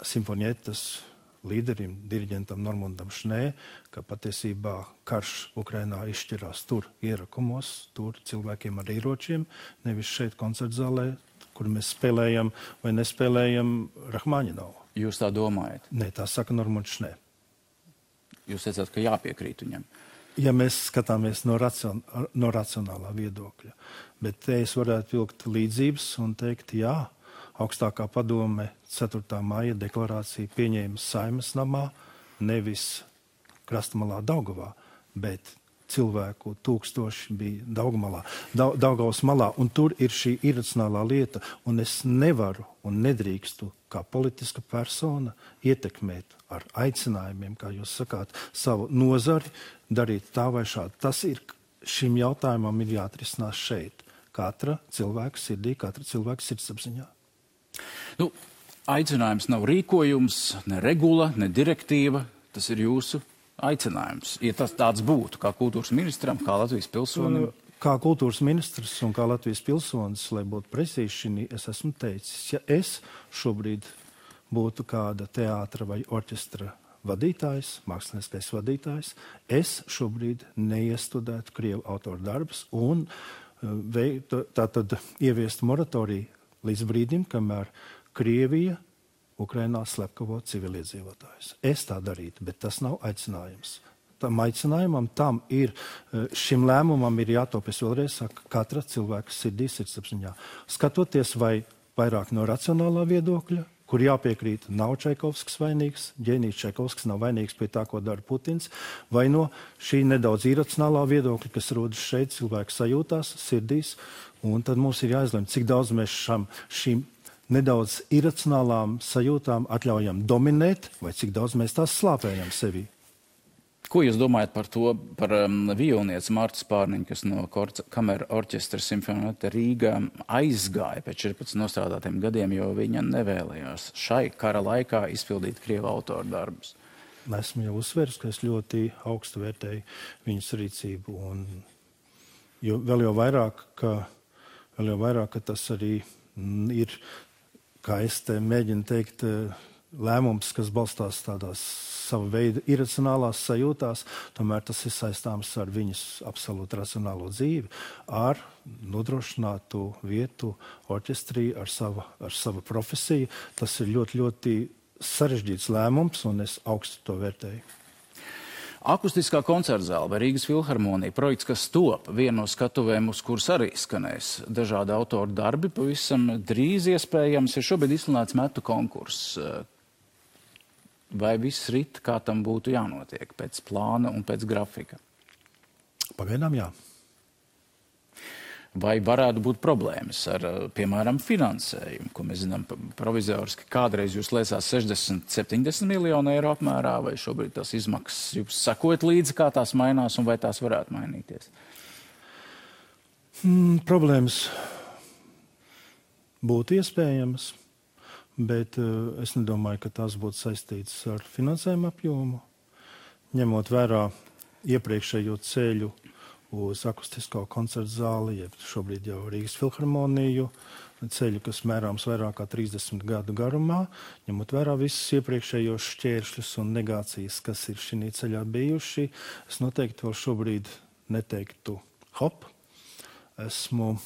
simfonietas līderim, diriģentam Normundam Šnē, ka patiesībā karš Ukrainā izšķirās tur ierakumos, tur cilvēkiem ar ieročiem, nevis šeit koncertzālē, kur mēs spēlējam vai nespēlējam Rahmaņinovu. Jūs tā domājat? Nē, tā saka Normunds Šnē. Jūs teicāt, ka jāpiekrīt viņam. Ja mēs skatāmies no racionālā viedokļa. Bet te es varētu vilkt līdzības un teikt, jā, augstākā padome 4. maija deklarāciju pieņēma Saeimas namā, nevis Krastmalā Daugavā, bet cilvēku tūkstoši bija Daugavas malā, un tur ir šī iracionālā lieta, un es nevaru un nedrīkstu kā politiska persona ietekmēt ar aicinājumiem, kā jūs sakāt, savu nozari, darīt tā vai šādi. Tas ir, šim jautājumam ir jāatrisinās šeit. Katra cilvēka sirdī, katra cilvēka sirdsapziņā. Aicinājums nav rīkojums, ne regula, ne direktīva. Tas ir jūsu aicinājums. Ja tas tāds būtu, kā kultūras ministram, kā Latvijas pilsonim? Kā kultūras ministrs un kā Latvijas pilsonis, lai būtu precīzi, es esmu teicis, ja es šobrīd būtu kāda teātra vai orķestra vadītājs, mākslinieckais vadītājs, es šobrīd neiestudētu Krievu autoru darbus un tātad ieviest moratoriju līdz brīdim, kamēr Krievija Ukrainā slepkavo civiliedzīvotājus. Es tā darītu, bet tas nav aicinājums. tam aicinājumam, šim lēmumam ir jātop, es vēlreiz saku, katra cilvēka sirdī, sirdsapziņā. Skatoties vai vairāk no racionālā viedokļa, kur jāpiekrīt, nav Čaikovskis vainīgs, ģēnijs Čaikovskis nav vainīgs pie tā, ko dara Putins, vai no šī nedaudz iracionālā viedokļa, kas rodas šeit cilvēku sajūtās, sirdīs, un tad mums ir jāizlem, cik daudz mēs šīm nedaudz iracionālām sajūtām atļaujam dominēt, vai cik daudz mēs tās slāpējam sevī. Ko jūs domājat par to, par violnieci Martu Spārniņu, kas no kamera orķestra Simfonēta Rīgā aizgāja pēc 14 nostrādātiem gadiem, jo viņa nevēlējās šai kara laikā izpildīt krievu autoru darbus? Esmu jau uzsvērs, ka es ļoti augstu vērtēju viņas rīcību, un vēl jau vairāk, ka tas arī ir, kā es te mēģinu teikt, lēmums, kas balstās tādās sava veida iracionālās sajūtās, tomēr tas ir saistāms ar viņas absolūti racionālo dzīvi, ar nodrošinātu vietu orķestrī, ar savu profesiju. Tas ir ļoti, ļoti sarežģīts lēmums, un es augstu to vērtēju. Akustiskā koncertzāle vai Rīgas filharmonija, projekts, kas top, viena no skatuvēm, uz kuras arī skanēs dažādi autoru darbi, pavisam drīz iespējams ir šobrīd izsludināts metu konkurss. Vai viss rit, kā tam būtu jānotiek, pēc plāna un pēc grafika? Pagaidām jā. Vai varētu būt problēmas ar, piemēram, finansējumu, ko mēs zinām provizoriski, kādreiz jūs lēsās 60-70 miljonu eiro apmērā, vai šobrīd tās izmaksas jūs sakojat līdzi, kā tās mainās un vai tās varētu mainīties? Problēmas būtu iespējamas, bet es nedomāju, ka tās būtu saistītas ar finansējumu apjomu. Ņemot vērā iepriekšējo ceļu uz akustisko koncertu zāli, jeb šobrīd jau Rīgas filharmoniju, ceļu, kas mērāms vairāk kā 30 gadu garumā, ņemot vērā visus iepriekšējos šķēršļus un negācijas, kas ir šī ceļā bijuši, es noteikti vēl šobrīd neteiktu hop. Esmu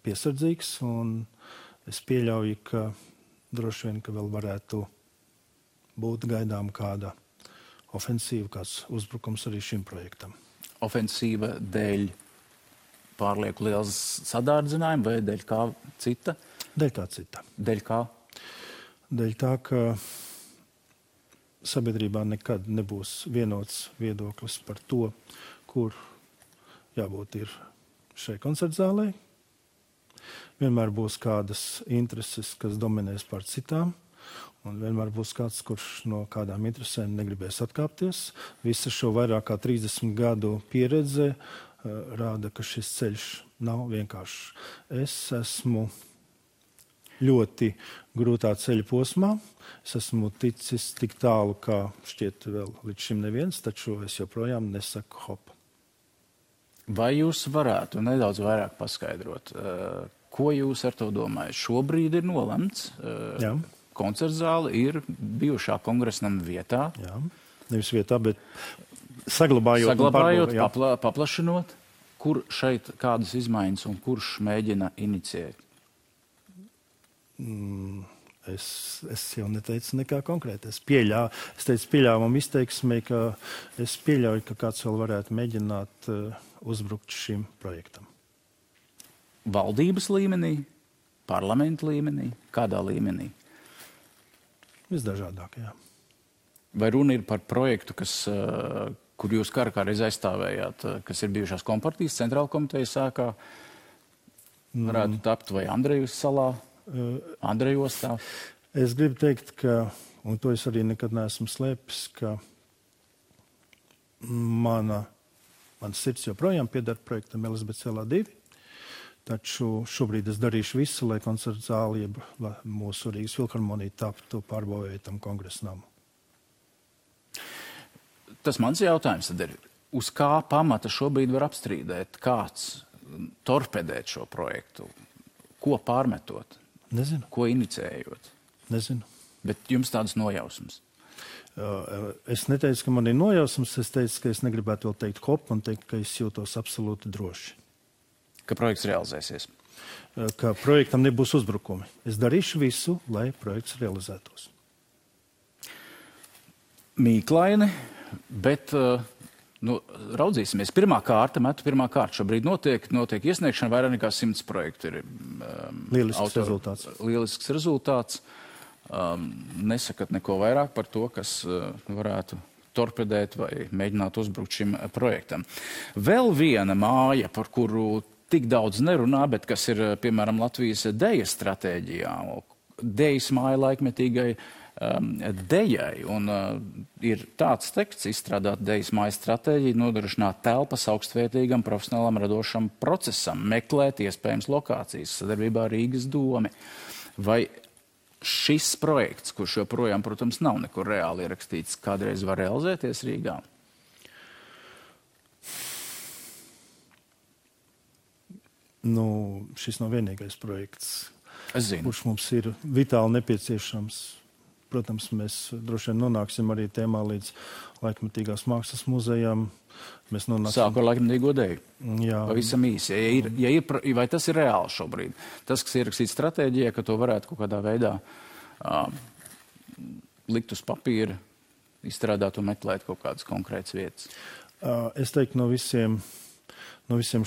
piesardzīgs un es pieļauju, ka droši vien, ka vēl varētu būt gaidām kāda ofensīva, kāds uzbrukums arī šim projektam. Ofensīva dēļ pārlieku liels sadārdzinājumi vai dēļ kā cita? Dēļ kā cita. Dēļ kā? Dēļ tā, ka sabiedrībā nekad nebūs vienots viedoklis par to, kur jābūt ir šai koncertzālē. Vienmēr būs kādas intereses, kas dominēs pār citām, un vienmēr būs kāds, kurš no kādām interesēm negribēs atkāpties. Visa šo vairāk kā 30 gadu pieredze rāda, ka šis ceļš nav vienkāršs. Es esmu ļoti grūtā ceļa posmā. Es esmu ticis tik tālu, kā šķiet vēl līdz šim neviens, taču es joprojām nesaku hop. Vai jūs varētu nedaudz vairāk paskaidrot, ko jūs ar to domājat? Šobrīd ir nolemts. Jā. Koncertzāle ir bijušā kongresnama vietā. Jā, nevis vietā, bet saglabājot paplašinot. Kur šeit kādas izmaiņas un kurš mēģina inicijēt? Es jau neteicu nekā konkrēti. Es teicu pieļāvumu izteiksmē, ka es pieļauju, ka kāds vēl varētu mēģināt uzbrukt šim projektam. Valdības līmenī, parlamenta līmenī, kādā līmenī? Visdažādākajā. Vai runa ir par projektu, kur jūs kādreiz aizstāvējāt, kas ir bijušās kompartijas centrāla komitejas sākā, varētu tapt vai Andrejus salā, Andrejostā? Es gribu teikt, ka, un to es arī nekad neesmu slēpis, ka mans sirds joprojām pieder projektam Elizabete Ielā 2, taču šobrīd es darīšu visu, lai koncertu zāli, lai mūsu Rīgas filharmonija taptu pārbūvētam kongresnamu. Tas mans jautājums tad ir, uz kā pamata šobrīd var apstrīdēt, kāds torpedēt šo projektu? Ko pārmetot? Nezinu. Ko inicējot? Nezinu. Bet jums tādas nojausmas? Es neteicu, ka man ir nojausmas, es teicu, ka es negribētu vēl teikt hop un teikt, ka es jūtos absolūti droši. Ka projekts realizēsies? Ka projektam nebūs uzbrukumi. Es darīšu visu, lai projekts realizētos. Mīklaini, bet Raudzīsimies. Pirmā kārta. Šobrīd notiek iesniegšana, vairāk nekā 100 projektu ir lielisks rezultāts. Nesakat neko vairāk par to, kas varētu torpedēt vai mēģināt uzbrukt šim projektam. Vēl viena māja, par kuru tik daudz nerunā, bet kas ir, piemēram, Latvijas dejas stratēģijā. Dejas māja laikmetīgai dejai. Un ir tāds teksts izstrādāt dejas mājas stratēģiju, nodrošināt telpas augstvērtīgam profesionālam radošam procesam, meklēt iespējams lokācijas sadarbībā ar Rīgas domi. Vai šis projekts, kurš joprojām, protams, nav nekur reāli ierakstīts, kādreiz var realizēties Rīgā? Šis nav vienīgais projekts, kurš mums ir vitāli nepieciešams. Protams, mēs droši vien nonāksim arī tēmā līdz laikmetīgās mākslas muzejam. Sāku ar laikmetīgo deju. Jā. Pavisam īsi. Vai tas ir reāli šobrīd? Tas, kas ierakstīts stratēģijā, ka to varētu kaut kādā veidā likt uz papīra, izstrādāt un meklēt kaut kādas konkrētas vietas? Es teiktu, no visiem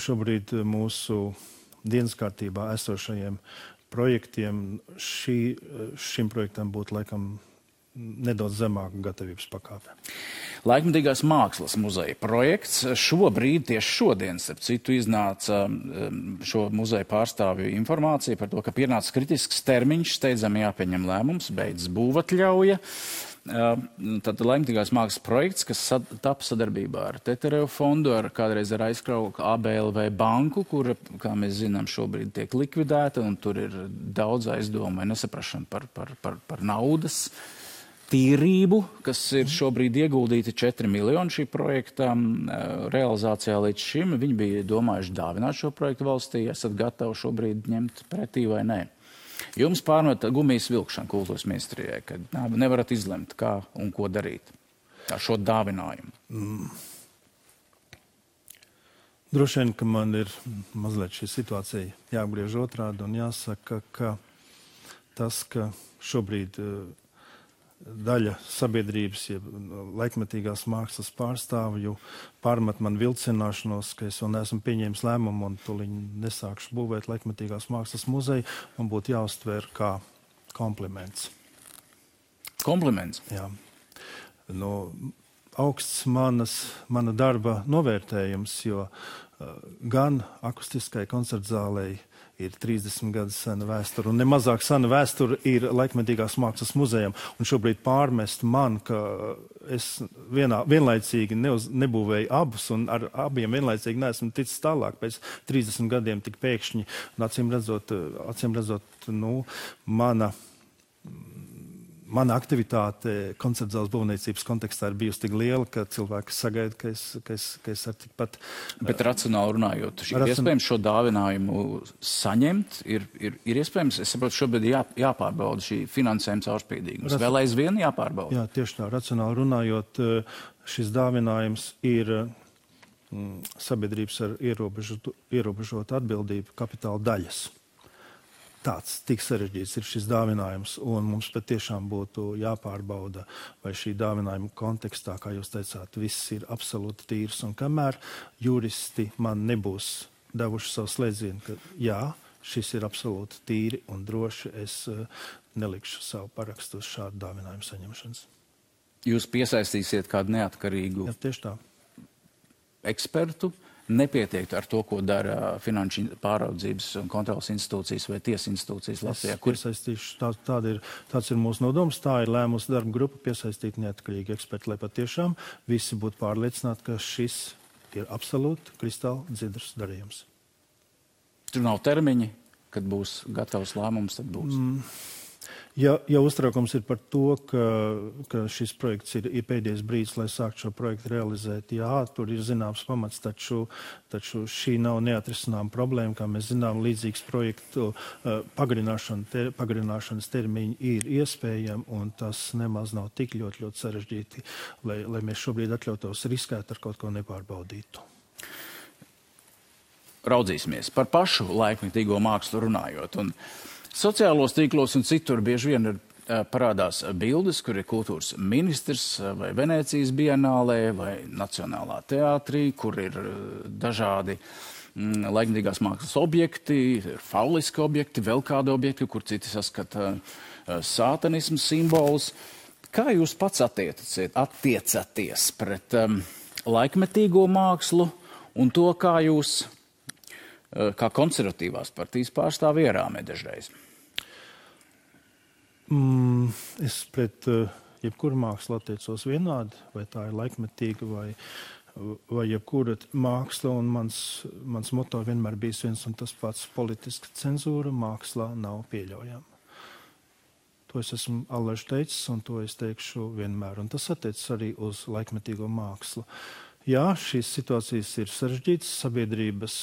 šobrīd mūsu dienas kārtībā esošajiem projektiem šim projektam būtu laikam nedaudz zemāka gatavības pakāpe. Laikmetīgās mākslas muzeja projekts šobrīd, tieši šodien, starp citu, iznāca šo muzeja pārstāvju informācija par to, ka pienāca kritisks termiņš, steidzami jāpieņem lēmums, beidz būvatļauja. Tad laikmetīgās mākslas projekts, kas tapa sadarbībā ar Tetereva fondu, kādreiz ar aizkrauku ABLV banku, kura, kā mēs zinām, šobrīd tiek likvidēta, un tur ir daudz aizdomu vai nesaprašana par naudas tīrību, kas ir šobrīd ieguldīti 4 miljoni šī projekta realizācijā līdz šim. Viņi bija domājuši dāvināt šo projektu valstī. Esat gatavi šobrīd ņemt pretī vai nē? Jums pārmet gumijas vilkšana kultūras ministrijai, kad nevarat izlemt, kā un ko darīt ar šo dāvinājumu. Droši vien, ka man ir mazliet šī situācija jāapgriež otrādi un jāsaka, ka tas, ka šobrīd daļa sabiedrības, laikmetīgās mākslas pārstāvju pārmet man vilcināšanos, ka es vēl neesmu pieņēmis lēmumu un tuliņ nesākšu būvēt laikmetīgās mākslas muzeju, man būtu jāuztver kā kompliments. Kompliments? Jā. Augsts mana darba novērtējums, jo gan akustiskai koncertzālei ir 30 gadus sena vēsture, un nemazāk sena vēsture ir laikmetīgās mākslas muzejam. Un šobrīd pārmest man, ka es vienlaicīgi nebūvēju abus, un ar abiem vienlaicīgi neesmu ticis tālāk pēc 30 gadiem tik pēkšņi. Un acīm redzot, mana aktivitāte koncertzāles būvniecības kontekstā ir bijusi tik liela, ka cilvēki sagaida, ka es ar tikpat... Bet racionāli runājot, ir iespējams šo dāvinājumu saņemt? Ir iespējams, es saprotu, šobrīd jāpārbauda šī finansējuma caurspīdīgums. Vēl aizvien jāpārbauda? Jā, tieši tā. Racionāli runājot, šis dāvinājums ir sabiedrības ar ierobežotu atbildību kapitāla daļas. Tāds tik sarežģīts ir šis dāvinājums, un mums patiešām būtu jāpārbauda, vai šī dāvinājuma kontekstā, kā jūs teicāt, viss ir absolūti tīrs, un kamēr juristi man nebūs devuši savu slēdzienu, ka jā, šis ir absolūti tīri un droši, es nelikšu savu parakstu uz šādu dāvinājumu saņemšanas. Jūs piesaistīsiet kādu neatkarīgu ekspertu? Nepietiek ar to, ko dara finanšu pāraudzības un kontrolas institūcijas vai tiesa institūcijas Latvijā? Tāds ir mūsu nodoms, tā ir lēmusi darba grupa piesaistīt neatkarīgi eksperti, lai patiešām visi būtu pārliecināti, ka šis ir absolūti kristāli dzidrs darījums. Tur nav termiņi, kad būs gatavs lēmums, tad būs. Ja uztraukums ir par to, ka šis projekts ir pēdējais brīdis, lai sāktu šo projektu realizēt, jā, tur ir zināms pamats, taču šī nav neatrisināma problēma, kā mēs zinām, līdzīgs projektu pagarināšanas termiņi ir iespējami, un tas nemaz nav tik ļoti sarežģīti, lai mēs šobrīd atļautos riskēt ar kaut ko nepārbaudītu. Raudzīsimies par pašu laikmetīgo mākslu runājot. Un sociālos tīklos un citur bieži vien ir parādās bildes, kur ir kultūras ministrs vai Venēcijas bienālē vai Nacionālā teātrī, kur ir dažādi laikmatīgās mākslas objekti, ir fauliski objekti, vēl kādi objekti, kur citi saskata sātanismu simbolus. Kā jūs pats attiecaties pret laikmetīgo mākslu un to, kā jūs, kā konservatīvās partijas pārstāvi ierāmē dažreiz? Es pret jebkuru mākslu attiecos vienādi, vai tā ir laikmetīga vai jebkura māksla, un mans moto vienmēr bijis viens un tas pats: politiska cenzūra mākslā nav pieļaujama. To es esmu allaž teicis, un to es teikšu vienmēr, un tas attiecas arī uz laikmetīgo mākslu. Jā, šīs situācijas ir sarežģītas, sabiedrības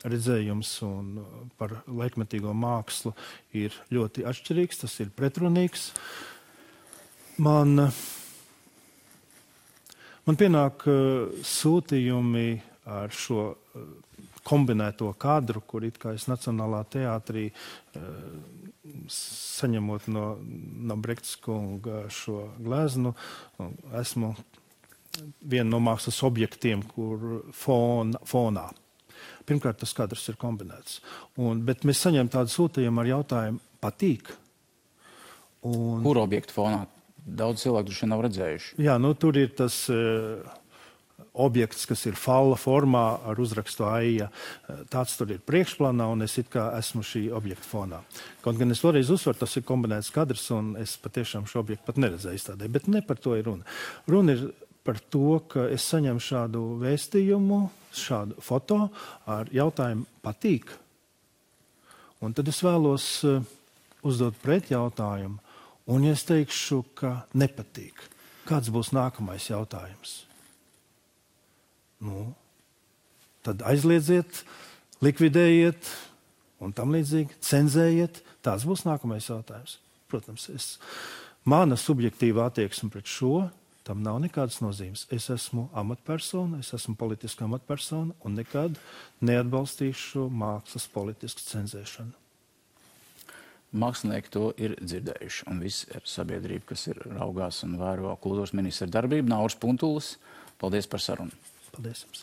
redzējums un par laikmetīgo mākslu ir ļoti atšķirīgs, tas ir pretrunīgs. Man pienāk sūtījumi ar šo kombinēto kadru, kur it kā es Nacionālā teātrī saņemot no Brektas kunga šo gleznu, esmu viena no mākslas objektiem, kur fonā. Pirmkārt, tas kadrs ir kombinēts. Bet mēs saņem tādu sūtījumu ar jautājumu: patīk? Kur objektu fonā? Daudz cilvēku droši nav redzējuši. Jā, tur ir tas objekts, kas ir falla formā ar uzrakstu Aija. Tāds tur ir priekšplānā, un es it kā esmu šī objekta fonā. Kaut gan es vēlreiz uzsveru, tas ir kombinēts kadrs, un es patiešām šo objektu pat neredzēju izstādē. Bet ne par to ir runa. Runa ir par to, ka es saņemu šādu vēstījumu, šādu foto ar jautājumu: patīk? Un tad es vēlos uzdot pret jautājumu, un ja es teikšu, ka nepatīk, kāds būs nākamais jautājums? Tad aizliedziet, likvidējiet un tam līdzīgi, cenzējiet. Tāds būs nākamais jautājums. Protams, mana subjektīva attieksme pret šo, tam nav nekādas nozīmes. Es esmu amatpersona, es esmu politiska amatpersona un nekad neatbalstīšu mākslas politisku cenzēšanu. Mākslinieki to ir dzirdējuši, un viss ir sabiedrība, kas ir raugās un vēro kultūras ministra darbību. Nauris Puntulis, paldies par sarunu. Paldies jums.